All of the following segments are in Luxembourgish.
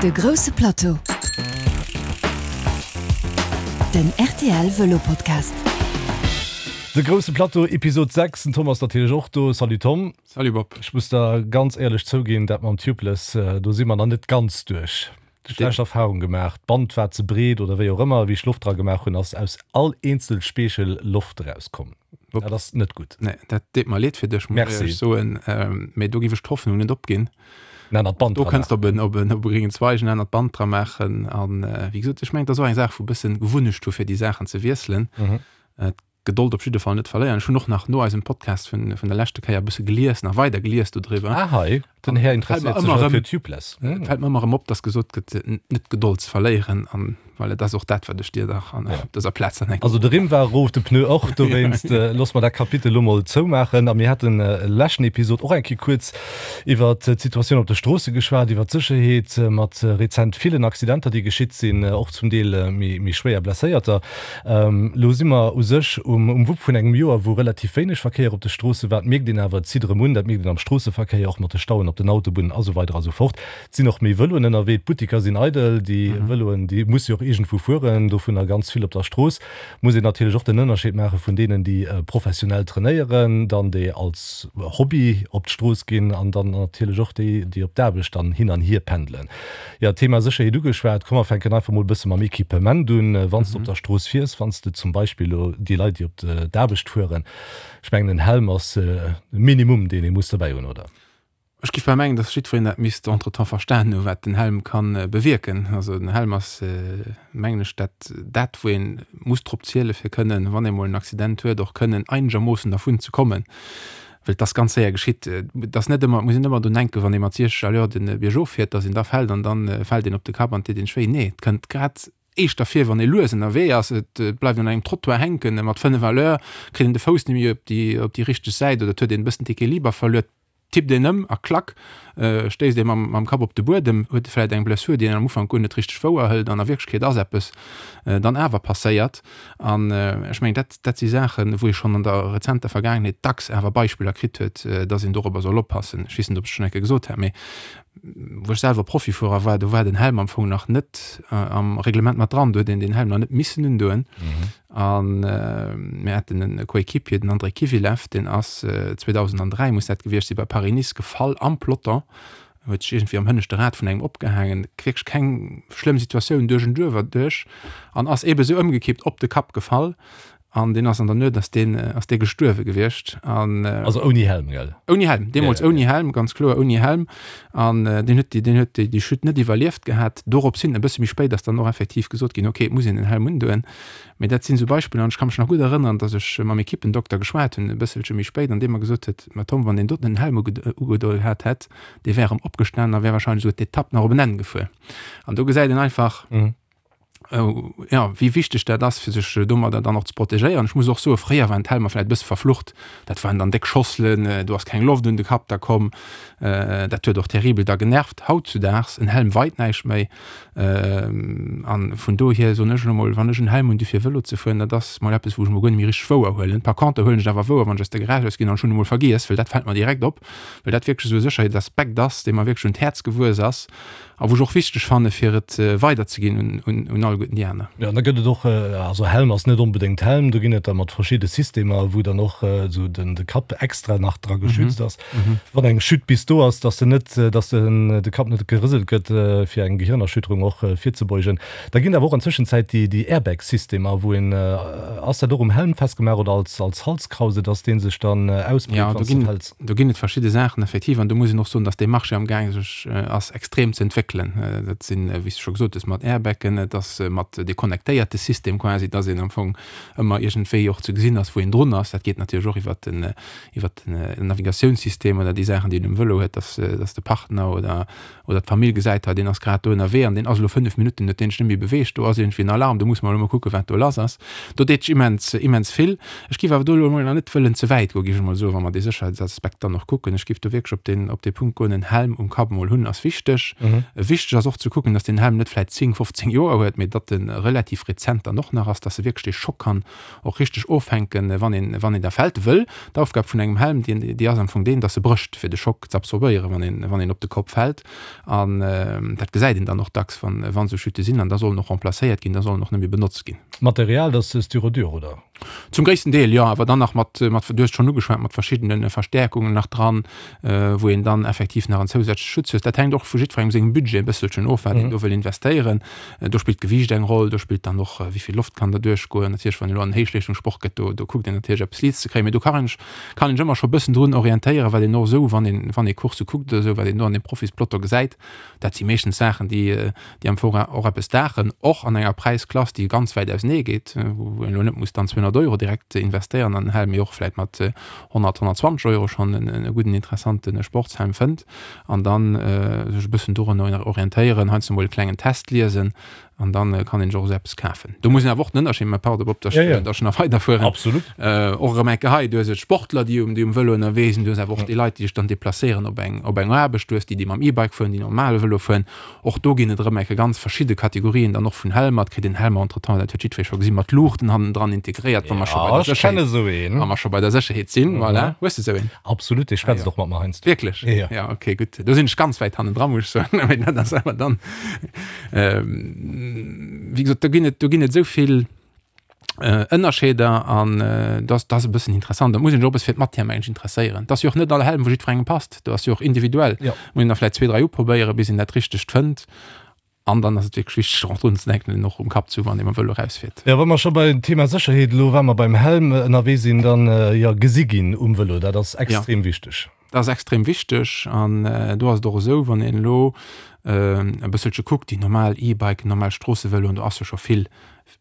De grousse Plateau, den rtl Vëlo Podcast. De grousse Plateau, Episod 6. Den Tom ass natierlech och do. Salut Tom. Salut Bob. Ech muss der ganz éierlech zouginn, dat mam Tubeless, do si mer nach net ganz duerch. Schlecht Erfahrung gemaach, d'Band war ze breet oder wéi och ëmmer, wéi ech Loft dra gemaach hunn, ass aus all eenzel Speechel Loft erauskomm. Dat ass net gutt. Nee, dat deet mer leed fir dech, muss ech éierlech soen. Mee do giff ech d'Hoffnung net opginn. En anert Band dra maachen. Do kënns de op en, op en, op e gréngen Zweig en anert Band dra maachen. An wéi gesot, ech mengen, et ass och eng Saach vu bëssen Gewunnecht hu fir déi Saachen ze wiesselen. D'Gedold op jidde Fall net verléieren. Ech hunn och nach no eisem Podcast vun, vun der leschte Kéier e bësse gelies, nach weider gelies dodriwwer. Ah hei, den Här interesséiert sech och fir Tubeless. Et fält mer ëmmer erëm op, dass gesot gëtt, net d'Gedold ze verléieren. An voilà, dat ass och dat, wat ech dir dach an op dëser Plaz dann eng. Also de Rimm war erof, de Pneu och. Dowéinst loosse mer dat Kapitel elo mol zoumaachen. A mir haten leschten Episod och eng Kéier kuerz iwwer d'Situatioun op de Stroosse geschwat, iwwer d'Sécherheet mat rezent villen Accidenter, déi geschitt sinn, och zum Deel méi schwéier Blesséierter. Elo si mer u sech um Wupp vun engem Joer, wou relativ wéineg Verkéier op de Stroosse war. Dat mierkt een awer, et zitt erëm un. Dat mierkt een am Stroosseverkéier, och mat de Stauen op den Autobunnen a sou weider a sou fort. Et sinn och méi Vëloen ënnerwee, d'Buttiker sinn eidel, déi Vëloen, déi musse jo och iergendwou fueren, dovunner ganz vill op der Strooss. Muss een natierlech och den Ënnerscheed maache vun deenen, déi professionell trainéieren, dann déi als Hobby op d'Strooss ginn an dann natierlech och déi, déi op d'Aarbecht dann hin an hier pendelen. Jo, Thema Sécherheet ugeschwat. Komm mer fänken einfach mol e bësse mam Equipement un. Wann s de op der Strooss fiers, wann s de zum Beispill elo déi Leit, déi op d'Aarbecht fueren, ech mengen en Helm ass e Minimum, deen ee muss dobäi hunn, oder? Ech géif bal mengen, dass jiddwereen dat misst entretemps verstanen hu wat den Helm ka bewierken. Also den Helm ass, mengen ech, dat, dat wou ee muss drop ziele fir kënnen, wann ee mol en Accident huet, och kënnen einegermoossen dervun ze kommen. Well et ass ganz séier geschitt. Et ass net ëmmer, et muss een net ëmmer drun denken, wann ee mat 60 à l'heure de Biergof fiert, dass een da fält an da fält een op de Kapp an et deet een wéi. Nee, et kënnt grad éischter vir, wann ee lues ënnerwee ass, et bleift un engem Trottoir hänken mat 5 à l'heure, kritt een de Fouss net méi op déi, op déi richteg Säit oder et huet een e bëssen d'Equiliber verluer, tippt een ëm a klack, stéisst ee mam, mam Kapp op de Buedem, huet e vläicht eng Blessur, déi een am Ufank guer net richteg wouer hëlt an a Wierklechkeet ass eppes dann awer passéiert. An ech mengen, dat, dat si Saachen, wou ee schonn an der rezenter Vergaangenheet dacks awer Beispiller kritt huet, dass een dorobber soll oppassen. Ech weess net, ob ech et schonn eng Kéier gesot hat, mee wou ech selwer Profifuerer war, do war den Helm am Fong nach net am Reglement mat dran, do huet een den Helm nach net missen undoen. A mir haten e Coéquipier, den Andrei Kivilev, deen ass 2003, muss dat gewiescht sinn, bei Paris-Nice gefall am Peloton, huet sech iergendwéi am hënneschte Rad vun engem opgehaangen, wierklech keng schlëmm Situatioun, duerch en Duerf erduerch, an ass eebe sou ëmgekippt, op de Kapp gefall. An deen ass an der Nuet ass deen, ass dee gestuerwe gewiescht. An Also ouni Helm, gell? Ouni Helm, deemools ouni Helm, ganz kloer ouni Helm. An deen huet déi, deen huet déi, déi Chute net iwwerlieft gehat. Dorops hin, e bësse méi spéit, ass dann och effektiv gesot ginn, okay, et muss een den Helm undoen. Mee dat sinn esou Beispiller, an ech ka mech nach gutt erënneren, datt ech mam Ekippendokter geschwat hunn, e bësselche méi spéit, an dee mer gesot huet, Ma Tom, wann deen doten en Helm ugedoen gehat hätt, dee wär erëm opgestanen a wär wahrscheinlech esouguer d'Etapp nach op en Enn gefuer. An do gesäit een einfach, jo, wéi wichteg dat ass, fir sech domadder dann och ze protegéieren. Ech muss och soen, fréier waren d'Helmer vläicht e bësse verflucht. Dat waren dann déck Schosselen, do ass keng Loft un de Kapp da komm. Dat huet och terribel da genervt. Hautzudaags, en Helm weit näischt méi. An vun dohier soen ech elo mol, wann ech en Helm hunn, du fir Vëlo ze fueren, dat ass mol eppes, wou ech mol guer net méi richteg wouer huelen. Par contre huelen ech et awer wouer, wann ech aus der Garage aus ginn an ech hunn e mol vergiess, well dat fält mer direkt op, well dat wierklech esou e Sécherheetsaspekt ass, dee mer wierklech un d'Häerz gewuess ass a wou ech och wichteg fanne fir et weiderzeginn un alleguerten déi aner. Jo, an da gëtt et och, also Helm ass net onbedéngt Helm, do ginn et da mat verschidde Systemer, wou dann och esou den de Kapp extra nach dra geschützt ass. Wann eng Chute bis do ass, dass de net, dass den de Kapp net gerëselt gëtt, fir eng Gehirnerschütterung och virzebeugen. Da ginn et awer och an Tëschenzäit déi déi Airbag-Systemer, wou een, ass dat och um Helm festgemaach oder als als Halskrause, dass dee sech dann ausbreet, wann s de fäls? Do ginn et verschidde Saachen effektiv an do muss een och soen, dass dee Marché am gaang sech ass extrem ze entwéckelen. Dat sinn, wéi s de scho gesot hues, mat Airbagen, et ass mat dee connectéierte System quasi, dass een am Fong ëmmer iergendwéi och ze gesinn ass, wou een drun ass. Dat geet natierlech och iwwert den iwwert den Navigatiounssystem oder déi Saachen, déi een um Vëlo huet, dass, dass de Partner oder, oder d'Famill gesäit, hei deen ass grad do ënnerwee an deen ass elo 5 Minutten, huet deen sech net méi beweegt, do ass iergendwéi en Alarm, do musse mer elo mol kucken, wat do lass ass. Do deet sech immens, immens vill. Ech géif awer do elo emol nach net wëllen ze wäit goen, géif ech emol soen, wa mer dee Sécherheitsaspekt dann och kucken. Ech géif do wierklech op deen, op dee Punkt goen, en Helm um Kapp emol hunn ass wichteg. Wichteg ass och ze kucken, dass den Helm net vläit 10, 15 Joer huet, mee datt e relativ rezent dann och nach ass, dass e wierklech dee Schock kann och richteg offänken, wann een, wann een da fält. Wëll d'Aufgab vun engem Helm, déi, déi ass am Fong deen, dass e brécht, fir de Schock z'absorbéieren, wann een, wann een op de Kopp fält. An dat gesäit een dann och dacks, wann, wann esou Chute sinn. An da soll en och remplacéiert ginn, da soll en och net méi benotzt ginn. D'Material, dat ass Styrodur, oder? Zum gréissten Deel, jo, awer dann nach mat, mat, du hues et schonn ugeschwat, mat verschiddene Verstäerkungen nach dran, wou een dann effektiv nach en zousätzleche Schutz huet. Dat hänkt och vu jiddwerengem sengem Budget e bësselchen of, wat een do wëll investéieren. Do spillt d'Gewiicht eng Roll, do spillt dann och, wéi vill Loft kann derduerch goen. Natierlech, wann een elo an den Héichleeschtungssport gëtt, do, do kuckt een natierlech eppes liichts ze kréien, mee do kann een sech, kann een sech ëmmer scho e bëssen drun orientéieren, wat een och esou, wann een, wann ee Coursse kuckt oder esou, wat een do an deem Profispeloton gesäit. Dat si meeschtens Saachen, déi, déi am Fong och eppes daachen, och an enger Präisklass, déi ganz wäit ausenee geet, wou een elo net muss dann 200 Euro direkt investéieren an en Helm, mee och vläicht mat 100, 120 Euro schonn e gudden, interessante Sportshelm fënnt an dann sech e bëssen dorunner orientéieren, heiansdo mol e klengen Test liesen an dann kann een sech och esou eppes kafen. Do muss een awer och den Ënnerscheed maachen, pardon Bob, dass ech dass ech nach weiderfueren, Absolut. och erëm eng Kéier hei, du hues et Sportler, déi um déi um Vëlo ënnerwee sinn, du hues awer och déi Leit, déi sech dann deplacéieren op eng op eng Aarbecht, du hues déi, déi mam E-Bike fueren, déi normale Vëlo fueren. Och do ginn et erëm eng Kéier ganz verschidde Kategorien dann och vun Helmer. Et kritt een Helmer entretemps, dat huet jiddweree scho gesinn, mat Luuchten hannendran integréiert, wa mer scho bei Ja, der ech kenne Sécherheet, esou een. wa mer scho bei der Sécherheet sinn, voilà. Hues de esou een? Absolut, dee schwätzt och mat mer heiansdo. Wierklech? Ja. Ja, okay, gutt. Do sinn ech ganz wäit hannendran, muss ech soen, mee dat ass awer dann. Wéi gesot, do ginn et, do ginn et esou vill Ënnerscheeder an dat ass e bëssen interessant. Da muss een sech och e bësse fir d'Matière mengen ech interesséieren. Et ass jo och net all Helm, wou jiddwerengem passt. Do ass jo och individuell. Jo. Muss een da vläicht zwee, dräi uprobéieren, bis een dat Richtegt fënnt. An dann ass et wierklech wichteg, och drun ze denken, en och um Kapp ze hu wann ee mam Vëlo erausfiert. Jo, wa mer scho beim Thema Sécherheet elo, wa mer beim Helm ënnerwee sinn, dann, jo, gesi ginn um Vëlo, dat ass extrem wichteg. Dat ass extrem wichteg an do ass et och esou, wann een elo e bësselche kuckt, déi normal E-Biken, normal Stroossevëloen, do ass jo scho vill,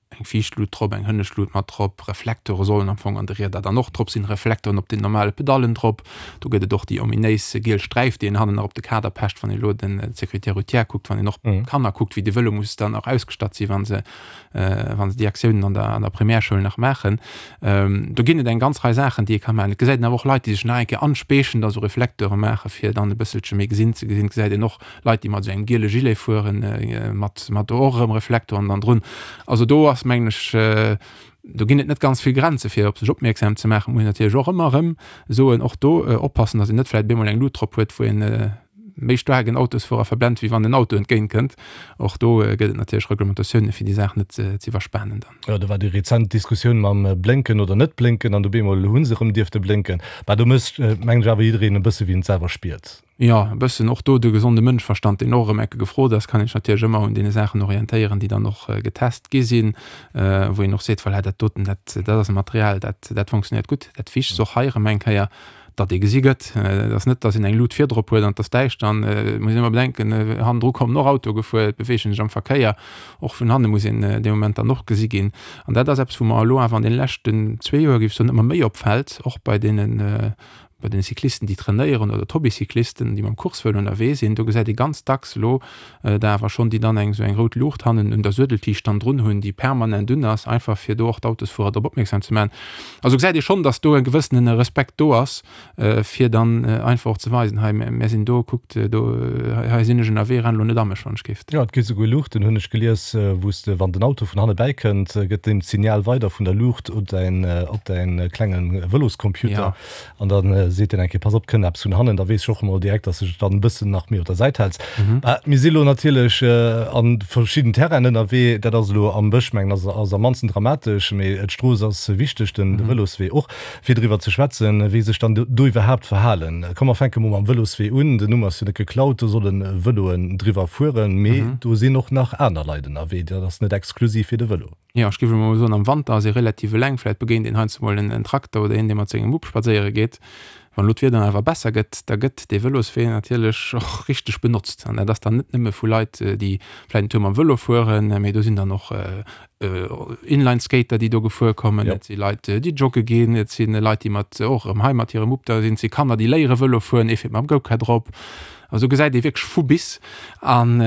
eng viischt Lut drop, eng hënnescht Lut mat drop, Reflektore sollen am Fong an de Rieder dann och drop sinn, Reflektoren op den normale Pedallen drop. Do gëtt et och déi ominéis giel Sträif, déi een hannen nach op de Kader pecht, wann ee elo den d'Sécurité routière kuckt, wann een och d'Kanner kuckt, wéi de Vëlo muss dann och ausgestatt sinn, wa se wa se déi Aktiounen an der an der Primärschoul nach maachen. Do ginn et eng ganz Rei Saachen, déi ee ka maachen. Et gesäit een awer och Leit, déi sech nach eng Kéier anspeechen, da sou Reflecteure maachen, fir dann e bësselche méi gesinn ze gesinn. Et gesäit een och Leit, déi mat esou engem giele Gilet fueren, mat mat do och erëm Reflektoren dann drun. Also do ass, mengen ech, do ginn et net ganz vill Grenze fir op sech opmierksam ze maachen. Muss een natierlech och ëmmer erëm soen, och do oppassen, datt een net vläicht op eemol eng Lut drop huet, wou een méi staark en Autosfuerer verblent, wéi wann en Auto entgéint kënnt. Och do gëtt et natierlech Reglementatiounen, fir déi Saach net ze iwwerspanen dann. Jo, do war déi rezent Diskussioun mam Blénken oder net Blénken an op eemol hu se erëm dierfte blénken. Bah, do mécht, mengen ech, awer jiddereen e bësse wéi en et selwer spiert. Jo, e bëssen och do de gesonde Mënschverstand, deen och erëm ecke gefrot ass, kann een sech natierlech ëmmer un deene Saachen orientéieren, déi dann och getest gi sinn, wou een och seet, voilà, dat doten, dat, dat ass e Material, dat, dat fonctionnéiert gutt. Dat Wichtegst och hei erëm eng Kéier, datt ee gesi gëtt. Et ass net, datt een eng Lut virdrop huet an et ass däischter. An et muss een ëmmer bedenken, hannendru kommen och Autoe gefuer, et beweegen sech am Verkéier. Och vun hanne muss een dee Moment dann och gesi ginn. An dat ass eppes, wou mer elo awer an deene leschten zwee Joer, géif ech soen, ëmmer méi opfält, och bei deenen, bei den Cyclisten, déi trainéieren oder d'Hobbycyclisten, déi mam Coursevëlo ënnerwee sinn. Do gesäit ee ganz dacks elo der awer schonn, déi dann eng esou eng rout Luucht hannen un der Suedeltiicht dann drun hunn, déi permanent un ass, einfach fir do och d'Autosfuerer drop opmierksam ze maachen. Also gesäit ee schonn, datt do e gewëssene Respekt do ass, fir dann einfach och ze weisen, hei mär sinn do, kuckt do, hei sinn ech ënnerwee, renn elo net a mech, wann ech géif. Jo, et gi souguer Luuchten, hunn ech gelies, wou s de, wann den Auto vun hanne bäikënnt, gëtt deen d'Signal weider vun der Luucht op däin, op däin klenge Vëloscomputer. An da seet deen eng Kéier, pass op, kënnt eppes vun hannen, da weess ech och emol direkt, dass de dech dann e bëssen nach méi op der Säit häls. Mir si lo natierlech a verschidden Terrainen ënnerwee. Dat ass elo am Bësch, mengen ass ass am mannsten dramatesch, mee d'Strooss ass wichteg, den de Vëloswee och, fir driwwer ze schwätzen, wéi sech dann do iwwerhaapt verhalen. Komm mer fänke mol mam Vëloswee un. Den Numm ass jo net geklaut, do solle Vëloen driwwer fueren, mee do sinn och nach aner Leit ënnerwee. Dat ass net exklusiv fir de Vëlo. Jo, ech géif elo mol soen, am Wanter ass ee relativ eleng. Vläit begéint een heiansdo mol en Trakter oder een, dee mat sengem Mupp spadséiere geet. Wann elo d'Wieder awer besser gëtt, da gëtt dee Vëloswee natierlech och richteg benotzt. An dat ass dann net nëmme vu Leit, déi vläit en Tour mam Vëlo fueren, mee do sinn dann och Inlineskater, déi do gefuer kommen, et si Leit, déi jogge ginn, et si Leit, déi mat och erëm hei mat hirem Mupp da sinn, et si Kanner, déi léiere Vëlo fueren, ee fiert mam Go-Kart drop. Also do gesäit ee wierklech vu bis. An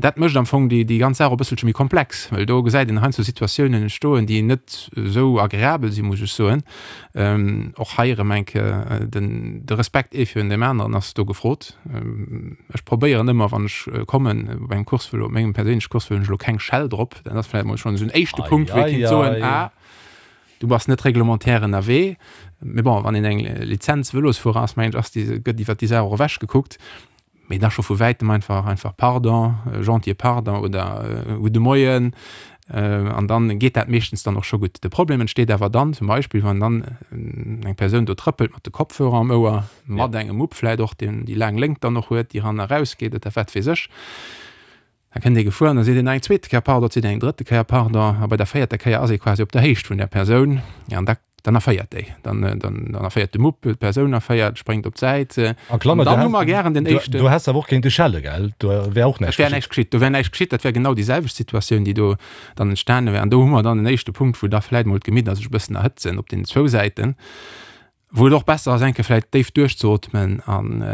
dat mécht am Fong déi ganz Saach och e bësselche méi komplex, well do gesäit een heiansdo Situatiounen entstoen, déi net esou agreabel sinn, muss ech soen. Och hei erëm eng Kéier de. den, de Respekt ee virun deem aneren ass do gefrot. Ech probéieren ëmmer, wann ech kommen op engem Coursevëlo, op mengem perséinleche Coursevëlo hunn ech elo keng Schell drop. Dat ass vläicht mol schonn esou en éischte Punkt, wou ee kéint soen, ah, du bass net reglementaire ënnerwee. Mee bon, wann een eng Lizenz Vëlosfuerer ass, mengen ech, ass déi, gëtt iwwert déi Saach och ewech gekuckt. Mee da scho vu wäitem einfach einfach Pardon, gentille Pardon oder Gudde Moien an dann geet dat meeschtens dann och scho gutt. De Problem entsteet awer dann zum Beispill, wann dann eng Persoun do trëppelt mat de Kopfhörer am Ouer, mat engem Mupp vläit och, deen déi laang Léngt dann och huet, déi eran a raus geet oder wat weess ech. Da kënnt ee gefuer an da seet een nach eng zweete Kéier Pardon, seet een eng drëtte Kéier Pardon a bei der véierter Kéier ass ee quasi op der Héicht vun där Persoun an da dann erféiert déi, dann dann dann erféiert de Mupp, d'Persoun erféiert, spréngt op d'Säit. A Klammer, du häss, gären den éischten. Du häss awer och kéinte schelle, gell? Do wär och näischt geschitt. Et wär näischt geschitt, do wär näischt geschitt, dat wär genau déi selwecht Situatioun, déi do dann entstane wär. An do hu mer dann en éischte Punkt, wou da vläicht mol d'Gemidder sech e bëssen erhëtzen op deenen zwou Säiten. Wou et och besser ass, eng Kéier vläicht déif duerchzeotmen an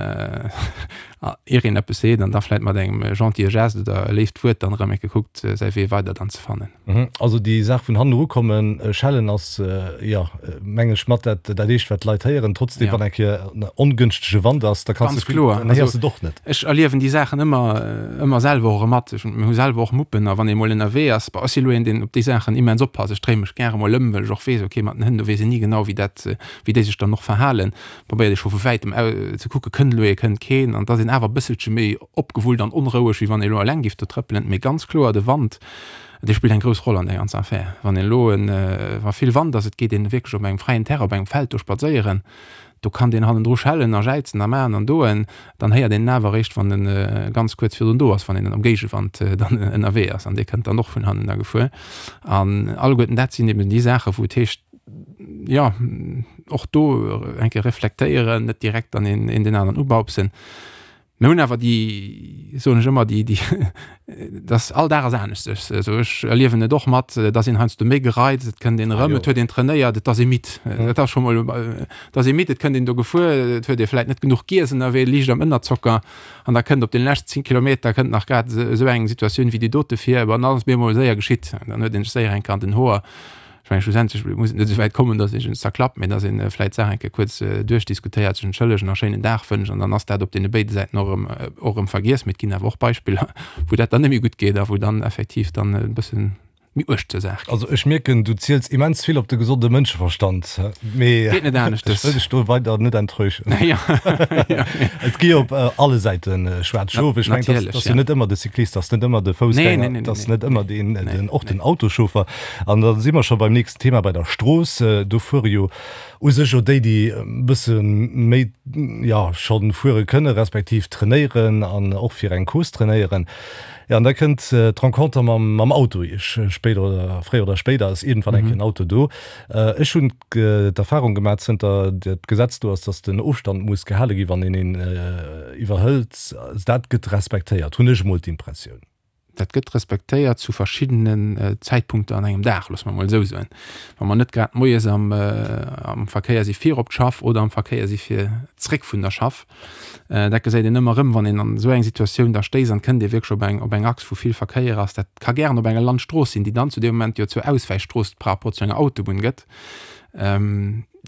ier een eppes seet an da vläicht mat engem gentille Geste oder e léift Wuert dann erëm eng Kéier kuckt, säi Wee weider dann ze fannen. Also déi Saach vun hannen erukommen, schellen ass, jo, meng ech, mat dat dat éischt, wat d'Leit héieren. Trotzdem, wann eng Kéier en ongënschtege Wand ass, da kanns de vill, dann héiers de et och net. Ech erliewen déi Saachen ëmmer, ëmmer selwer och erëm mat. Ech, mir hu selwer och Muppen a wann ee mol ënnerwee ass, bon, ech si lo een, deen op déi Saachen immens oppasst, ech dréi mech gäre mol ëm, well ech och weess, okay, mat den Hënn, do weess een ni genau, wéi dat, wéi déi sech dann och verhalen, probéiert ee scho vu wäitem ze kucken, kënnt elo ee, kënnt keen, an et ass een awer e bësselche méi opgewullt an onroueg, wéi wann ee elo eleng géif do trëppelen. Mee ganz kloer, de Wand, dee spillt eng grouss Roll an där ganzer Affär. Wann een elo en, wa vill Wand ass, et geet een wierklech op engem fräien Terrain, op engem Feld do spadséieren, do kann deen hannendru schellen a jäizen a maachen an doen, dann héiert een en awer eréischt, wann e ganz kuerz virdrun do ass, wann een am Géigewand dann ënnerwee ass an dee kënnt dann och vun hannen da gefuer. An alleguerten dat sinn eben déi Saachen, wou et heescht, jo, och do eng Kéier reflektéieren, net direkt dann een een deen aneren ubaupsen. Mir hunn awer déi, soen ech ëmmer, déi, déi, dass all Dag ass aneschters. Also ech erliewen et och mat, et ass een heiansdo méi gereizt, et kënnt een erëm, et huet een trainéiert, et ass ee midd. Et ass scho mol, et ass ee midd, et kënnt een do gefuer, et huet ee vläit net genuch giess ënnerwee, liicht am Ënnerzocker an da kënnt op den leschten 10 Kilometer kënnt nach grad esou eng Situatioun wéi déi dote vir, an dann ass et bemol séier geschitt. Dann huet een sech séier eng Kéier an den Hoer. Ech mengen, schlussendlech muss et net esou wäit kommen, datt ee sech zerklappt, mee datt ee vläicht d'Saach eng Kéier kuerz duerchdiskutéiert, sech entschëllegen a schéinen Dag wënscht an dann ass dat op deene béide Säiten och erëm, och erëm vergiess. Mee et ginn awer och Beispiller, wou dat dann net méi gutt geet a wou dann effektiv dann e bësse méi uerg zur Saach geet. Also ech mierken, du ziels immens vill op de gesonde Mënscheverstand, mee Geet net aneschters. ech wëll dech do weider net enttäuschen. Et gi op alle Säite schwaarz Schof. Ech mengen, dat ass jo net ëmmer de Cyclist, dat ass net ëmmer de Foussgänger, dat ass net ëmmer deen, och den Autoschauffer. An da si mer scho beim nächsten Thema, bei der Strooss. Do fuere jo u sech jo déi, déi e bësse méi, jo, scho fuere kënne respektiv trainéieren an och fir eng Course trainéieren. Jo, an da kënnt d'Renconter mam, mam Auto iech spéider oder fréier oder spéider ass iergendwann eng Kéier en Auto do. Ech hunn d'Erfahrung gemaach, zënter dat Gesetz do ass, dass den Ofstand muss gehale gi wann een een iwwerhëlt. Dat gëtt respektéiert, hunn ech emol d'Impressioun. Dat gëtt respektéiert zu verschiddenen Zäitpunkter an engem Dag, loosse mer emol esou soen. Wa mer net grad moies am am Verkéier si fir op d'Schaff oder am Verkéier si fir zréck vun der Schaff. Dat gesäit een ëmmer erëm, wann een an esou eng Situatioun da stéisst an et kënnt ee wierklech op eng op eng Achs, wou vill Verkéier ass. Dat ka gären op enger Landstrooss sinn, déi dann zu deem Moment jo zur Auswäichstrooss par rapport zu enger Autobunn gëtt.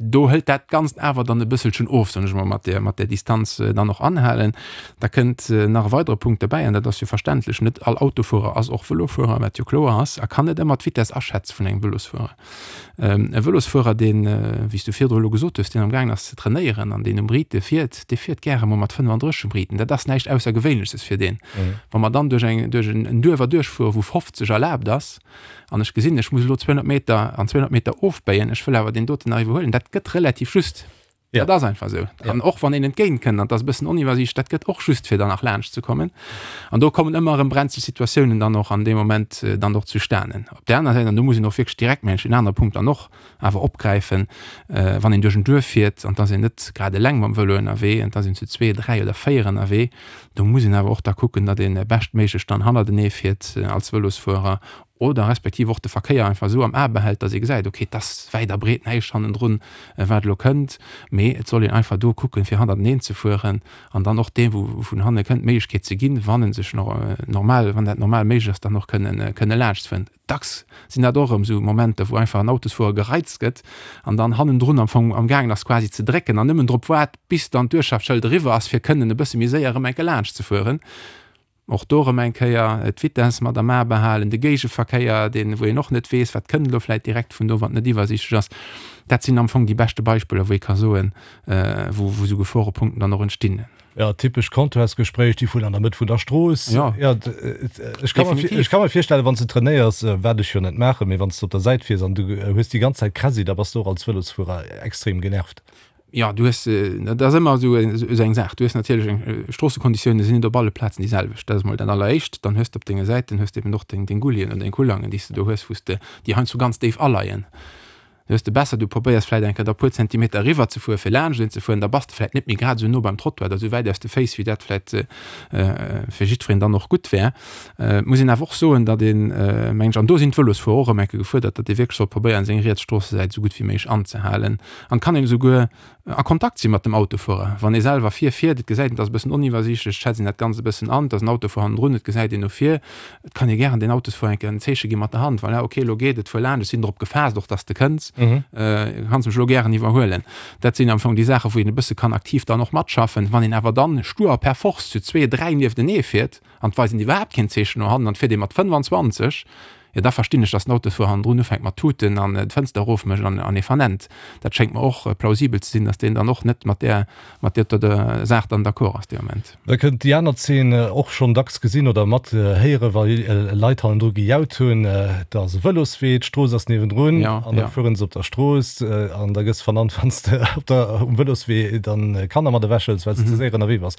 Do hëlt dat Ganzt awer dann e bësselchen of, soen ech emol, mat där, mat där Distanz dann och anhalen. Da kënnt nach e weidere Punkt derbäi, an dat ass jo verständlech, Net all Autofuerer ass och Vëlofuerer, wat jo kloer ass, a kann net ëmmer d'Vitess aschätze vun engem Vëlosfuerer. E Vëlosfuerer, deen, wéi s du virdru elo gesot hues, deen amgaangen ass ze trainéieren an deen um Rite fiert, dee fiert gäre mol mat 35 um Riten. Dat ass näischt Aussergewéinleches fir deen. Wa mer dann duerch eng, duerch en Duerf erduerchfueren, wou 50 erlaabt ass, an ech gesinn, ech muss elo 200 Meter an 200 Meter ofbéien, ech wëll awer deen doten nach iwwerhuelen, dat gëtt relativ just. Ja. Dat ass einfach esou. Ja. An och wann een entgéint kënnt, an dat ass e bëssen oniwwersiicht, dat gëtt och just fir dann nach laanscht ze kommen. An do kommen ëmmer erëm brenzlech Situatiounen dann och an deem Moment äh, dann och zustanen. Op där aner Säit, an do muss een och wierklech direkt mengen ech en anere Punkt dann och awer opgräifen, äh, wann een duerch en Duerf fiert an et ass een net grad eleng mam Vëlo ënnerwee, an et ass een zu zwee, dräi oder véier ënnerwee, do muss een awer och da kucken, datt een beschtméiglech dann hannertenee fiert als Vëlosfuerer. Oder respektiv och de Verkéier einfach esou am A behält, datt ee gesäit, okay, et ass wäit a breet näischt hannendrun, wat elo kënnt. Mee et soll een einfach do kucken, fir hannerteneen ze fueren an dann och deem, wou vun hanne kënnt, d'Méiglechkeet ze ginn, wann e sech normal, wann dat normal méiglech ass, dann och kënnen, kënne laanschtfueren. Dacks sinn dat och erëm esou Momenter, wou einfach en Autosfuerer gereizt gëtt an dann hannendrun am Fong amgaangen ass quasi ze drécken an nëmmen drop waart, bis dann d'Uertschaftsschëld eriwwer ass, fir kënnen e bësse méi séier erëm eng Kéier laanschtzefueren. Och do erëm eng Kéier d'Vitesse mat am A behalen, de Géigeverkéier, deen, wou een och net weess, wat kënnt elo vläicht direkt vun do, wann et net iwwersiichtlech ass. Dat sinn am Fong déi beschte Beispiller, wou ee ka soen, wou, wou esou Geforepunkten dann och entstinn. Jo, typesch Comptoirsgespréich, déi vun an der Mëtt vun der Strooss. Jo, jo, ech ka mer, ech ka mer virstellen, wann s de trainéiers, wat ech jo net maachen, mee wann s de op der Säit fiers an du hues déi ganz Zäit Kräsi, da bass de och als Vëlosfuerer extrem genervt. Jo, du hues, dat ass ëmmer esou esou eng Saach. Du hues natierlech eng, Stroossekonditiounen sinn net op alle Plazen déi selwecht. Dat ass emol dat Alleréischt. Dann hues de op denge Säiten hues de eben och deng, deng Gullien oder deng Kullangen, déi s de do hues, wou s de, déi heiansdo ganz déif aleien. Du hues de besser, du probéiers vläicht eng Kéier da puer Zentimeter eriwwer ze fueren, fir laanscht een ze fueren, da bass de vläicht net méi grad esou no beim Trottoir oder esou wäit aus de Féiss, wéi dat vläicht fir jiddwereen dann och gutt wär. Et muss een awer och soen, datt een, mengen ech, an do sinn d'Vëlosfuerer och erëm eng Kéier gefuerdert, datt ee wierklech soll probéieren, seng riets Stroossesäit esou gutt wéi méiglech anzehalen. An et kann een esouguer a Kontakt si mat dem Autofuerer, wann ee selwer vir fiert, et gesäit een, et ass e bëssen oniwwersiichtlech, et schätzt een dat Ganzt e bëssen an, et ass en Autofuer hannendrun, et gesäit een no vir. Et kann ee gären den Autosfuerer eng Kéier en Zeeche gi mat der Hand, voilà, okay, elo geet et, fuer laanscht, ech sinn drop gefaasst och, datt s de kënns, kanns mech elo gären iwwerhuelen. Dat sinn am Fong déi Saachen, wou een e bësse kann aktiv dann och matschaffen. Wann een awer dann stur a per force zu zwee, dräi nieftenee fiert, an d'weisen iwwerhaapt keen Zeechen no hannen an d'fiert ee mat 25, jo da verstinn ech, datt den Autosfuerer hannendrun ufänkt mat tuten an d'Fënster erofmécht an an ee vernennt. Dat schéngt mer och plausibel ze sinn, datt deen dann och net mat där mat där der Saach dann d'accord ass dee Moment. Da kënnt déi aner Zeen, och schonn dacks gesinn oder mat héieren, wa Leit hannendru gejaut hunn, da ass e Vëloswee, d'Strooss ass niewendrun an da fueren se op der Strooss an da gëss vernannt, wann s de op der um Vëloswee dann Kanner mat ewechhëls, well s de ze séier ënnerwee bass.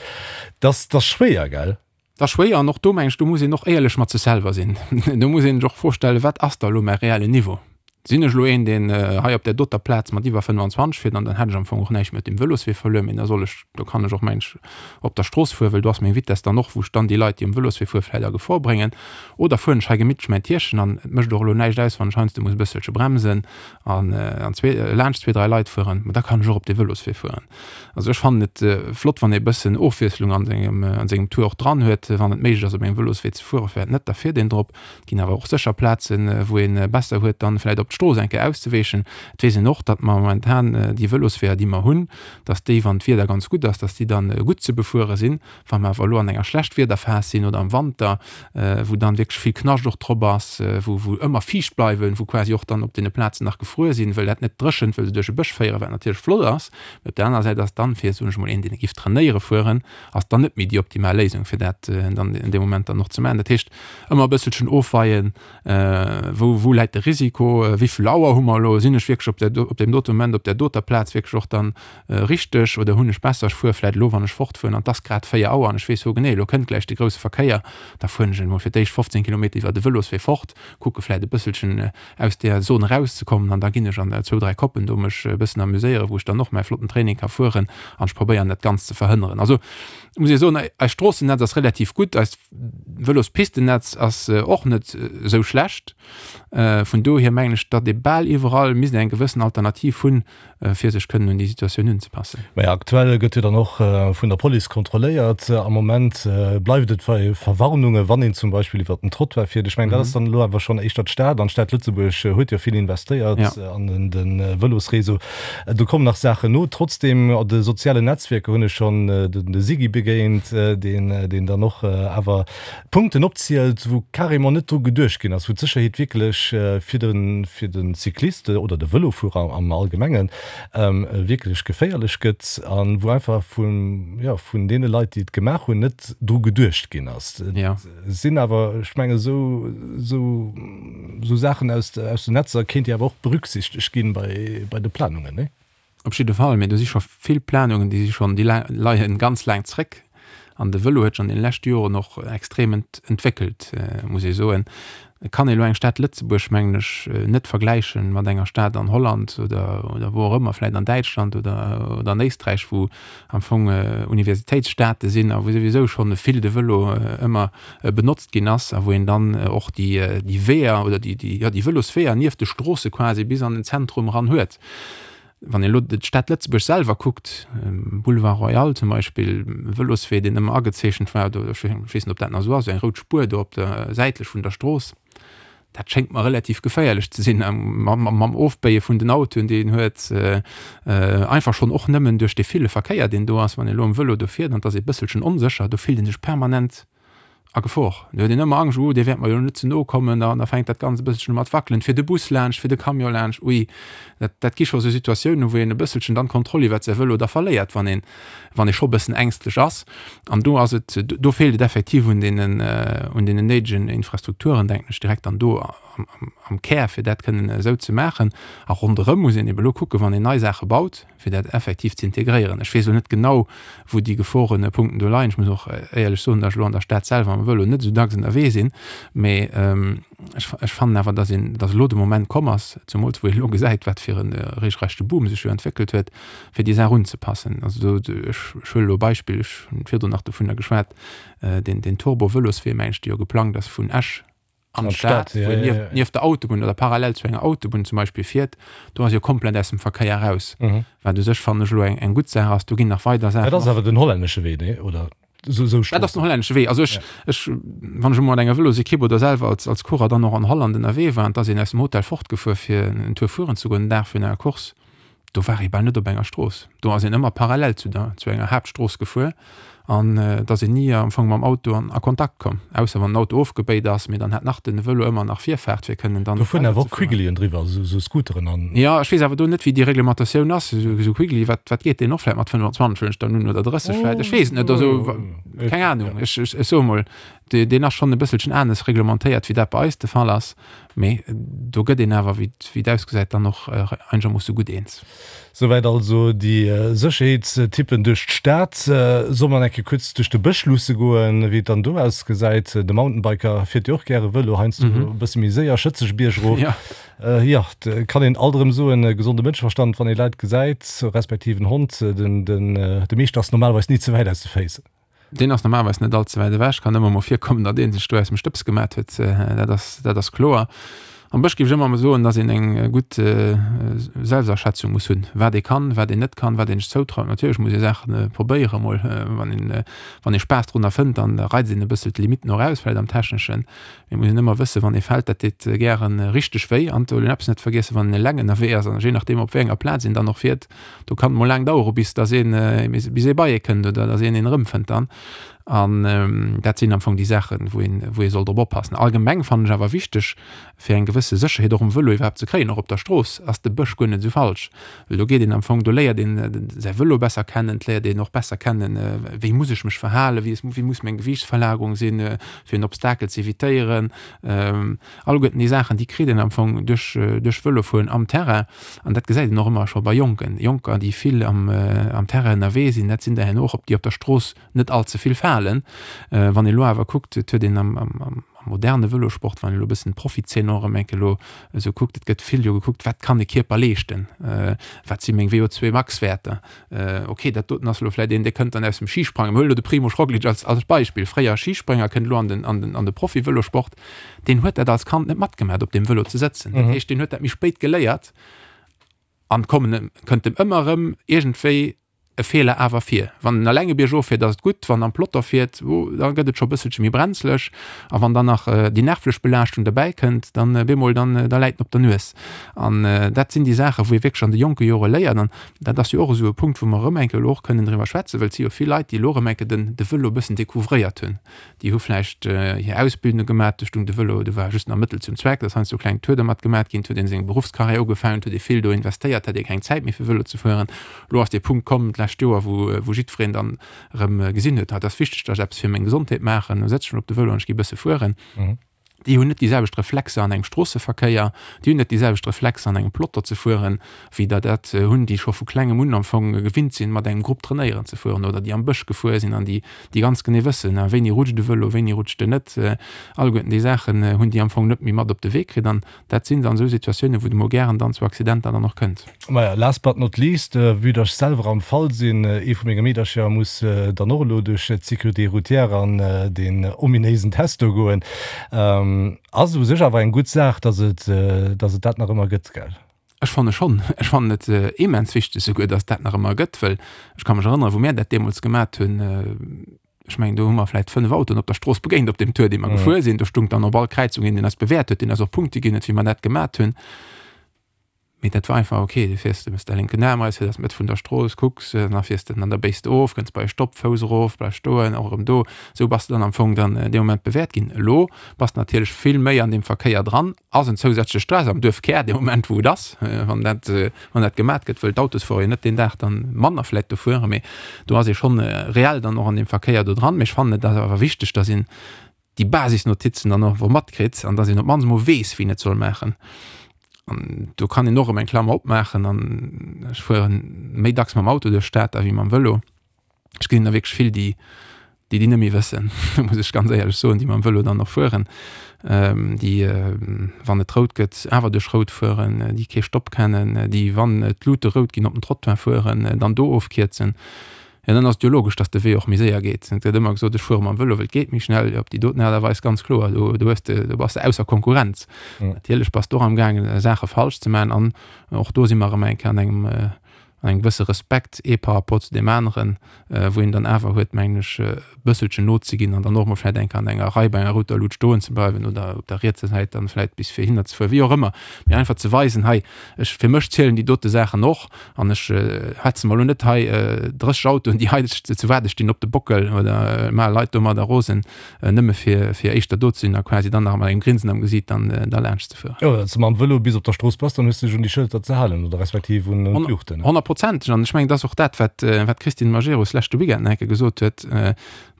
Dat ass schwéier, gell? Dat ass schwéier an och do mengen ech, do muss een och éierlech mat sech selwer sinn. Do muss een sech och d'Fro stellen, Wat ass da elo mäi reellen Niveau? Sinn ech elo een, deen hei op där doter Plaz mat iwwer 25 fiert an dann hätt ech am Fong och näischt méi op dem Vëloswee verluer, mee da soll ech, do kann ech och mengen ech op der Strooss fueren, well do ass meng Vitess dann och, wou ech dann déi Leit, déi um Vëloswee fueren, vläicht a Gefor bréngen. Oder fueren ech hei gemittlech mäin Tierchen an et mécht och elo näischt aus, wann ech heiansdo muss e bësselche bremsen an laanscht zwee, dräi Leit fueren, ma da kann ech och op de Vëloswee fueren. Also ech fannen et flott wann ee bëssen Ofwiesslung an sengem an sengem Tour och dran huet, wann et méiglech ass op engem Vëloswee ze fueren, firwat net, da fiert een drop. Et ginn awer och sécher Plazen wou een besser huet dann vläit op d'Strooss eng Kéier auszeweechen. Et weess een och, datt mer momentan déi Vëlosweeër déi mer hunn, datt déi wann d'Wieder ganz gutt ass, datt déi dann gutt ze befuere sinn. Wa mer awer elo an enger Schlechtwiederphas sinn oder am Wanter, wou dann wierklech vill Knascht och drop ass, wou wou ëmmer fiicht bleiwen, wou quasi och dann op deene Plazen nach gefruer sinn, wëll dat net dréchent, wëll se duerch e Bësch féieren, wat natierlech flott ass, mee op där anerer Säit ass dann, fir, soen ech mol, een, deen giff trainéiere fueren, ass dann net méi déi optimal Léisung, fir dat dann an deem Moment dann och ze maachen. Dat heescht, ëmmer e bësselchen ofweien, wou wou läit de Risiko, wéi vill Auer hu mer elo, sinn ech wierklech op där op deem dote Moment op där doter Plaz wierklech och dann Richteg, oder hunn ech besser, ech fuere vläit elo, wann ech fortfueren, an 't ass grad 4 Auer an ech weess hogenee, elo kënnt gläich de grousse Verkéier, da fueren ech emol fir d'éischt 15 Kilometer iwwer de Vëloswee fort, kucke vläit e bësselchen aus där Zon erauszekommen an da ginn ech an zwou, dräi Koppen do mech e bëssen amuséieren, wou ech dann och mäi flotten Training ka fueren an ech probéieren dat Ganzt ze verhënneren. Also muss ee soen, eist Stroossennetz ass relativ gutt, eist Vëlospistennetz ass och net esou schlecht. Vun dohier mengen ech, datt ee bal iwwerall misst eng gewëssen Alternativ hunn, fir sech kënnen un déi Situatioun unzepassen. Mä aktuell gëtt jo dann och vun der Police kontrolléiert. Am Moment bleift et bei Verwarnungen, wann een zum Beispill iwwert den Trottoir fiert. Ech mengen, dat ass dann elo awer schonn éischter d'Stad. An d'Stad Lëtzebuerg huet jo vill investéiert an de Vëlosréseau. Do kommen nach Saachen no. Trotzdeem, op de sozialen Netzwierker hunn ech schonn de Sigi begéint, deen dann och awer Punkten opzielt, wou carrément net dru geduecht ginn ass, wou d'Sécherheet wierklech fir de fir de Cycliste oder de Vëlofuerer am Allgemengen wierklech geféierlech gëtt a wou einfach vun, jo, vun deene Leit, déi et gemaach hunn, net dru geduecht ginn ass. Et sinn awer, ech mengen, esou esou esou Saachen aus aus den Netzer kéint jo awer och berücksichtegt ginn bei bei de Planungen, nee? Op jidde Fall, mee do si scho vill Planungen, déi si schonn, déi leien ganz laang zréck. An de Vëlo huet sech an deene leschte Joren och extrem entwéckelt, muss ee soen. Et kann ee elo eng Stad Lëtzebuerg, mengen ech, net vergläiche mat enger Stad an Holland oder wou och ëmmer, vläicht an Däitschland oder oder an Éisträich, wou am Fong Universitéitsstaate sinn a wou souwisou schonn vill de Vëlo ëmmer benotzt ginn ass a wou een dann och déi déi Weeër oder déi déi jo déi Vëlosweeër nieft de Stroosse quasi bis an den Zentrum eran huet. Wann een elo d'Stad Lëtzebuerg selwer kuckt, Boulevard Royal zum Beispill, e Vëloswee, deen ëmmer agezeechent war, do, ech weess net, ob dat nach esou ass, esou eng rout Spuer do op der, säitlech vun der Strooss, dat schéngt mer relativ geféierlech ze sinn, mam Ofbéie vun den Autoen, déi een huet, einfach schonn och nëmmen duerch dee ville Verkéier, deen do ass. Wann een elo am Vëlo do fiert an et ass ee bësselchen onsécher, do fillt ee sech permanent A Gefor. Do huet een ëmmer Angscht, oh, dee wäert mer jo net ze no kommen, an da fänkt dat Ganzt e bësselchen u mat wackelen, fir de Bus laanscht, fir de Camion laanscht, ui, dat, dat gi scho sou Situatiounen, wou een e bësselchen dann d'Kontroll iwwert säi Vëlo da verléiert, wann een, wann ee scho e bëssen ängstlech ass. An do ass et, do feelt et effektiv un deenen, un deenen néidegen Infrastrukturen, denken ech direkt, an do am, am, am Kär, fir dat kënnen esou ze maachen. A ronderëm muss een ebe lo kucken, wann een nei Saache baut, fir dat effektiv ze integréieren. Ech weess elo net genau, wou déi Geforepunkten do leien. Ech muss och éierlech soen, datt ech elo an der Stad selwer mam Vëlo net esou dacks ënnerwee sinn. Mee ech, ech fannen awer, datt een, datt elo de Moment komm ass, zemools wou een elo gesäit, wat fir e regelrechte Boom sech jo entwéckelt huet, fir déi Saach unzepassen. Also do, ech, ech huele elo e Beispill, ech hunn virdrun nach dovunner geschwat, deen, deen Turbo-Vëloswee, meng ech, dee jo geplangt ass vun Esch an d'Stad, wou een nieft, nieft der Autobunn oder parallel zu enger Autobunn zum Beispill fiert, do ass jo komplett aus dem Verkéier raus. Mhm. Wat u sech, fannen ech, elo eng, eng gutt Saach ass. Do ginn nach weider Saachen. Dat ass awer den hollännesche Wee, nee? Oder sou, sou Dat ass den hollännesche Wee. Also ech, ja. ech, wann ech emol mat enger Vëlosekipp oder selwer als, als Coureur dann och an Holland ënnerwee war, an et ass een aus dem Hotel fortgefuer, fir en Tour fueren ze goen, den Dag virun enger Course, do war ee bal net op enger Strooss. Do ass een ëmmer parallel zu der, zu enger Haaptstrooss gefuer an et ass een ni am Fong mam Auto an a Kontakt komm, ausser wann den Auto ofgebéit ass, mee dann hat nach den Vëlo ëmmer nach Virfaart fir kënnen dann Do fueren awer och Quigglien driwwer, esou, esou Scooteren an. Jo, ech weess awer do net wéi déi Reglementatioun ass. Esou, esou Quiggly, wat, wat geet deen och vläit mat 25 huelen ech dann un oder 30 vläit, ech weess et net, also keng Ahnung, ech, ech, ech soe mol, Deen ass schonn e bësselchen anes reglementéiert, wéi dat bei eis de Fall ass. Mee do gëtt een awer, wéi et ausgesäit, dann och einegermoosse gutt eens. Souwäit also déi Sécherheetstippen duerch d'Stad. Solle mer eng Kéier kuerz duerch de Bësch luusse goen, wéi et dann do ausgesäit? De Mountainbiker fiert jo och gäre Vëlo, heiansdo e bësse méi séier, schëtzeg biergrof. Jo, et kann een alt erëm soen, gesonde Mënscheverstand, wann ee Leit gesäit, respektiv en Hond, de Meeschter ass normalerweis ni ze wäit aus de Féiss. Deen ass normalerweis net all ze wäit ewech. Kann ëmmer mol virkommen, datt ee sech do aus dem Stëbs gemat huet. Dat ass, dat ass kloer. Am Bësch géif ech ëmmer mol soen, datt een eng gutt Selbstaschätzung muss hunn, wat ee kann, wat een net kann, wat een sech zoutraut. Natierlech muss ee Saache probéiere mol. Wann een, wann ee Spaass drunner fënnt, dann reizt een e bëssel d'Limitten och aus, vläicht am Techneschen. Mee muss een ëmmer wëssen, wann ee fält, dat deet gären richteg wéi. An et soll een eppes net vergiessen, wann een eleng ënnerwee ass, an jee nachdeem op wéi enger Plaz een dann och fiert, do kann et mol laang dauere bis dass een bis ee bei ee kënnt oder dass een een erëmfënnt dann. An dat sinn am Fong déi Saachen, wou een wou ee soll drop oppassen. Allgemeng fannen ech awer wichteg, fir eng gewësse Sécherheet och um Vëlo iwwerhaapt ze kréien, och op der Strooss, ass de Bësch guer net esou falsch. Well do geet een am Fong, do léiert een säi Vëlo besser kennen, et léiert een och besser kennen, wéi muss ech mech verhalen, wéi wéi muss meng Gewiichtsverlagerung sinn, fir en Obstakel ze evitéieren. Alleguerten déi Saachen, déi kritt een am Fong duerch duerch Vëlofueren am Terrain. An dat gesäit een och ëmmer scho bei Jonken. Jonker, déi vill am am Terrain ënnerwee sinn, dat sinn der herno och op déi op der Strooss net all ze vill falen. Wann ee lo awer kuckt, et huet een am am am moderne Vëlosport, wann ee lo e bëssen d'Profizeen och erëm eng Kéier elo esou kuckt, et gëtt vill jo gekuckt, wat kann de Kierper leeschten, wat si meng VO2-Max-Wäerter, Ok, dat doten ass elo vläit een, dee kënnt dann aus dem Schisprangen. Mir huelen elo de Primož Roglič als, als Beispill, fréier Schisprénger, kënnt elo an den, an den, an de Profi-Vëlosport. Deen huet dat als Kand net matgemaach, op deem Vëlo ze sëtzen. Dat heescht, deen huet dat méi spéit geléiert an kommen, kënnt em ëmmer erëm iergendwéi e Feeler awer vir. Wann en eleng e Bierg of fiert, ass et gutt, wann en am Peloton fiert, oh, da gëtt et scho e bësselche méi brenzleg. A wann dann nach déi nervlech Belaaschtung derbäi kënnt, dann bemol, dann, da läit en op der Nues. An dat sinn déi Saachen, wou ee wierklech an de jonke Jore léiert. An Dat ass jo och esou e Punkt, wou mer erëm eng Kéier elo och kënnen driwwer schwätzen, well et si jo vill Leit, déi elo erëm eng Kéier den, de Vëlo e bëssen découvréiert hunn. Déi hu vläicht hir Ausbildung gemaach, do stung de Vëlo, do war just nach Mëttel zum Zweck, da ass heiansdo kleng Tour dermat gemaach ginn, et huet ee seng Beruffscarrière ugefaangen, et huet ee vill do investéiert, hat ee keng Zäit méi fir Vëlo ze fueren. Elo ass dee Punkt komm d'lescht Joer, wou, wou jiddwereen dann erëm gesinn huet, ah, et ass wichteg, datt ech eppes fir meng Gesondheet maachen, elo sëtz ech mech op de Vëlo an ech gi e bësse fueren. Déi hunn net déi selwecht Reflexer an engem Stroosseverkéier, déi hunn net déi selwecht Reflexer an engem Peloton ze fueren, wéi der dat hunn, déi scho vu klengem un am Fong gewinnt sinn, mat engem Grupp trainéieren ze fueren oder déi am Bësch gefuer sinn an déi, déi ganz genee wëssen, wéini rutscht e Vëlo, wéini rutscht en net. Alleguerten déi Saachen hunn déi am Fong net méi mat op de Wee kritt an dat sinn dann esou Situatiounen, wou et emol gären dann zu Accidenter dann och kënnt. Maja, last but not least, vue dass ech selwer am Fall sinn, ee vu menge Meedercher muss dann och elo duerch d'Sécurité routière an deen ominéisen Test do goen, ass u sech awer eng gutt Saach, dass et, dass et dat nach ëmmer gëtt, gell? Ech fanne schonn. Ech fannen et immens wichteg souguer, dass et dat nach ëmmer gëtt, well ech ka mech erënneren, wou mär dat deemools gemat hunn, ech mengen do hu mer vläit 5 Autoen op der Strooss begéint op deem Tour dee mer gefuer sinn. Do stung dann op all Kräizung een deen eis bewäert huet, deen eis och Punkte ginn huet wéi mer dat gemat hunn. Mee dat war einfach ok, du fiers, du méchs däi lénken Aarm eraus, fiers aus d'Mëtt vun der Strooss, kucks, da fiers de an da béis de of, kënns bei e Stopp, Fouss erof, bleifs stoen, och erëm do. Esou bass de dann am Fong dann dee Moment bewäert ginn. Elo bass de natierlech vill méi an deem Verkéier dran, ass en zousätzleche Stress am Duerfkär dee Moment wou et ass, wann dat wann dat gemat gëtt, wëll d'Autosfuerer jo net deen Dag dann manner vläit do fueren, mee do ass ee schonn reell dann och an deem Verkéier do dran. Mee ech fannen et ass awer wichteg, dass een déi Basisnotizen dann och matkritt an dass een op d'mannst emol weess, wien et soll maachen. An do kann een och erëm eng Klammer opmaachen an ech fuere méi dacks mam Auto duerch d'Stad da wéi mam Vëlo. Ech gesinn der wierklech vill, déi déi déi net méi wëssen, muss ech ganz éierlech soen, déi mam Vëlo dann och fueren, déi wann et rout gëtt, awer duerch rout fueren, déi kee Stopp kennen, déi wann d'Lute rout ginn op den Trottoir fueren, dann do ofkierzen. Jo, dann ass et jo logesch, datt de Wee och méi séier geet. Et gëtt ëmmer gesot, ech fuere mam Vëlo, well et geet méi schnell. Jo, op déi doten Aart a Weis ganz kloer, do do hues de, do bass de ausser Konkurrenz. Natierlech bass de och amgaangen, Saache falsch ze maachen an och do si mer erëm eng Kéier an engem an engem gewësse Respekt ee par rapport zu deem aneren, wou een dann awer huet, mengen ech, e bësselchen nozeginn an dann och emol vläicht eng Kéier an enger Rei bei enger router Lut stoen ze bleiwen oder op der rietser Säit dann vläicht bis fir hinner ze fueren, wéi och ëmmer, mee einfach ze weisen, hei, ech, fir mech zielen déi dote Saachen och an ech hetze mer elo net hei 30 Autoen, déi hei zu waarde stinn, op de Bockel oder maache Leit domadder rosen. Nëmme fir fir éischter do ze sinn a quasi dann nach mat engem Grinsen am Gesiit dann da laanscht ze fueren. Jo, wann s de mam Vëlo bis op der Strooss bass, dann hues de dech un déi Schëlter ze halen oder respektiv un d'Luuchten. Honnertprozenteg. An ech mengen, et ass och dat, wat wat d'Christine Majerus leschte Weekend nach eng Kéier gesot huet,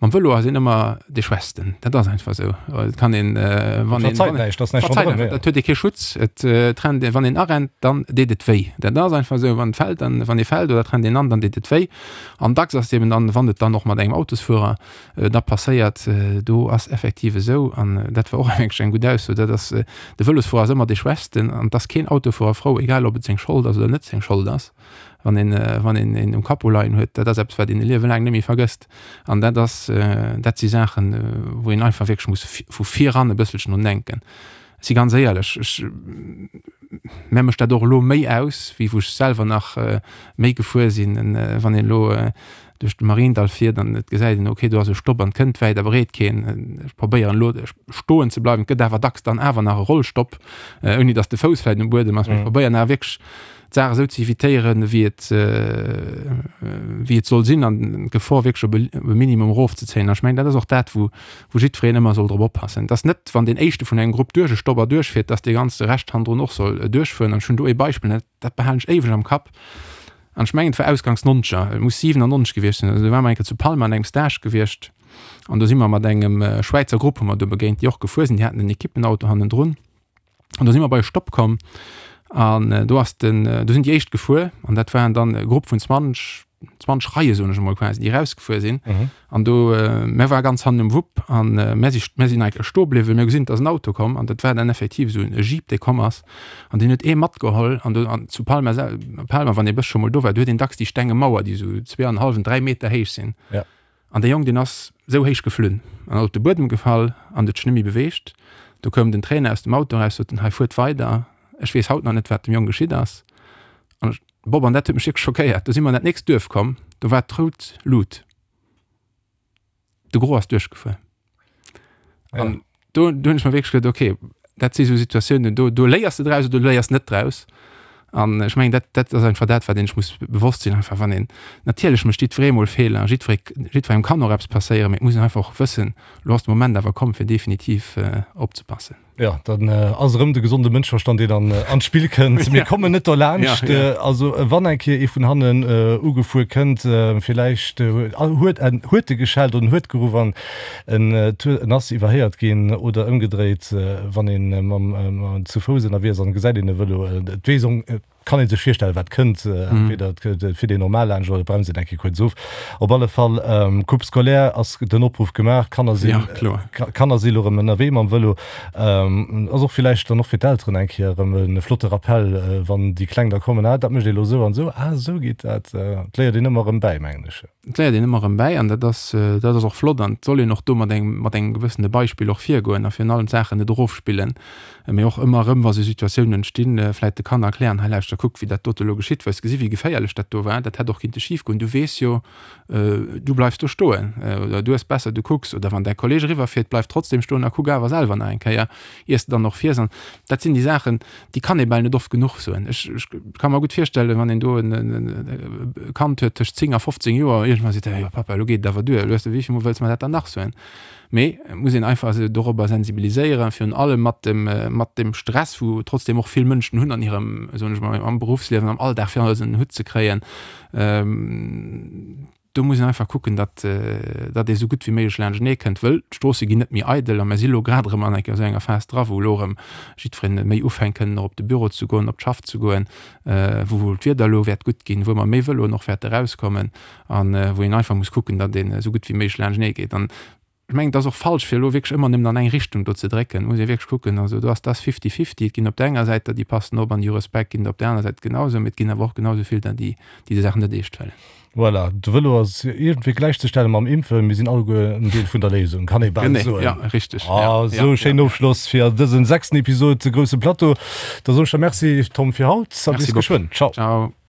Mam Vëlo ass een ëmmer dee Schwächsten. Dat ass einfach esou. Et kann een, wann een, Verzeit näischt, ass näischt ronderëm, jo. Dat huet ee kee Schutz. Et rennt een, wann een arennt, dann deet et wéi. Dat ass einfach esou. Wann et fält, dann, wann ee fält oder et rennt een an, dann deet et wéi. An dacks ass et eben dann, wann et dann och mat engem Autosfuerer da passéiert, do ass effektiv esou, an dat war och wierklech eng gutt Ausso, dat ass, de Vëlosfuerer ass ëmmer dee Schwächsten an et ass keen Autofuerer frou, egal ob et seng Schold ass oder net seng Schold ass, wann een, wann een een um Capot leien huet. Dat ass eppes, wat een e Liewe laang net méi vergësst. An dat ass, dat si Saachen, wou een einfach wierklech muss vu viran e bësselchen drun denken. Ech si ganz éierlech, ech, mär mécht dat och elo méi aus, wéi wou ech selwer nach méi gefuer sinn, wann een elo duerch de Mariendall fiert an et gesäit een, ok, do ass e Stopp an et kënnt wäit a breet keen. Ech probéieren elo stoen ze bleiwen, et gëtt awer dacks dann awer nach e Rollstopp, ouni datt de Fouss vläicht um Buedem ass. Mee ech probéieren awer wierklech d'Saach esou ze evitéieren, wéi et, wéi et soll sinn an d'Gefor wierklech op e Minimum erofzezéien. An ech mengen, dat ass och dat, wou, wou jiddwereen ëmmer soll drop oppassen. Et ass net, wann deen éischte vun engem Grupp duerch e Stopp erduerchfiert, datt dee ganze Rescht hannendrun och soll duerchfueren. An ech hunn do ee Beispill, dat behalen ech éiweg am Kapp, An ech mengen, et war ausgangs Nonzeger, et muss 97 gewiescht sinn, also do ware mer eng Kéier zu Palma an engem Stage gewiescht an do si mer mat engem Schwäizer Grupp hu mer do begéint, déi och gefuer sinn, déi haten en Ekippenauto hannendrun an do si mer bei e Stopp komm an do ass den, do sinn déi éischt gefuer an dat waren dann e Grupp vun 20, 20 Reie soen ech emol quasi, déi erausgefuer sinn. An do, mär ware ganz hannen um Wupp an mär si, mär sinn eigentlech stoe bliwwen. Mir hu gesinn, et ass en Auto komm an dat war dann effektiv esou e Jeep, dee komm ass an deen huet ee matgeholl. An do, an zu Palma sel, Palma, wann ee bëssche mol do war, do huet een dacks déi stenge Mauer, déi esou zweeanenhallwen, 3 Meter héich sinn. Ja. An dee Jong, deen ass esou héich geflunn an ass op de Buedem gefall an huet sech net méi beweegt. Do koum den Trainer aus dem Auto eraus, sot en, Hei, fuert weider, ech weess haut nach net, wat dem Jong geschitt ass. An ech, Bob, an dat huet mech wierklech schockéiert, do si mer an dat nächst Duerf komm, do war d'rout Lut. De Gros ass duerchgefuer. An do, do hunn ech mer wierklech geduet, okay, dat si sou Situatiounen, do, do léiers de draus oder du léiers net draus. An ech mengen, dat, dat ass einfach dat, wat een sech muss bewosst sinn, einfach wann een, natierlech mécht jiddweree mol Feeler, jiddweree, jiddwerengem kann och eppes passéieren, mee et muss een einfach och wëssen, elo ass de Moment awer komm, fir definitiv opzepassen. Jo, dann ass erëm de gesonde Mënschverstand, deen an an d'Spill kënnt. Mir kommen net derlaanscht. Also wann eng Kéier ee vun hannen ugefuer kënnt, villäicht huet en huet e geschellt oder en huet geruff an en en ass iwwerhéiert ginn oder ëmgedréit, wann ee mam zu Fouss ënnerwee ass an gesäit een e Vëlo, et weess Kann ee sech virstellen, wat kënnt. Entweder et fiert een normal laanscht oder et bremst een eng Kéier kuerz of. Op alle Fall, Coupe scolaire ass den Opruff gemaach. D'Kanner sinn, Kanner si lo erëm ënnerwee mam Vëlo. Ass och villäicht dann och fir d'Elteren eng Kéier erëm e flotte Rappell, wann déi Kleng da kommen, Ah, dat mécht ee lo esou an esou. Ah, esou geet dat. Et léiert een ëmmer erëm bäi, mengen ech. Et léiert een ëmmer erëm bäi an dat ass, dat ass och flott an et soll een och do mat engem, mat engem gewëssene Beispill och virgoen a virun allem d'Saachen net erofspillen, mee och ëmmer erëm, wa sou Situatiounen entstinn, vläicht de Kanner erklären, hei lauschter, kuck wéi dat dote elo geschitt, hues gesi wéi geféierlech dat do war, dat hätt och kinnte schif goen, du weess jo, du bleifs do stoen oder du hues besser, du kucks oder wann däi Kolleeg eriwwerfiert, bleif trotzdem stoen a kuck awer selwer nach eng Kéier, iers de dann och fiers an dat sinn déi Saachen, déi kann ee bal net oft genuch soen. Ech, ech ka mer gutt virstellen, wann een do en, en, e Kand huet tëscht 10 a 15 Joer, iergendwann seet e, jo Papa, elo geet et awer duer, elo hues de, wéi vill Mol wëlls mer dat dann nach soen? Mee et muss een einfach se dorobber sensibiliséieren, virun allem mat dem, mat dem Stress, wou trotzdem och vill Mënschen hunn an hirem, soen ech mol, am Beruffsliewen, am Alldag, fir alles ënner den Hutt ze kréien. Do muss een einfach kucken, datt, datt ee sou gutt wéi méiglech laanschtenee kënnt, wëll d'Stroosse ginn net méi eidel a mer si lo grad erëm an enker esou enger Phas dra, wou elo erëm jiddwereen méi ufänkt kënnen och op de Büro ze goen, op d'Schaff ze goen, wou d'Wieder elo wäert gutt ginn, wou mer méi Vëloen och wäerte erauskommen a wou een einfach muss kucken, datt een esou gutt wéi méiglech laanschtenee geet. An Ech mengen, et ass och falsch, fir elo wierklech ëmmer nëmmen an eng Richtung do ze drécken. Et muss ee wierklech kucken, also do ass, dat ass fifty-fifty. Et ginn op där enger Säit der, déi passen op an déi hu Respekt, ginn der op där aner Säit genausou, mee et ginn awer och genausou vill der, déi déi déi Saachen net eescht huelen. Voilà, de Vëlo ass iergendwéi gläichzestelle mam Impfen. Mir sinn alleguer en Deel vun der Léisung, kann ee bal Genee, soen. ja, richteg. Ah, Ja, esou ja, e schéinen ja. Ofschloss fir dësen sechsten Episod Grousse Plateau. Da soen ech der Merci, Tom, fir haut a Merci, bis Bob. geschwënn. Ciao. Ciao.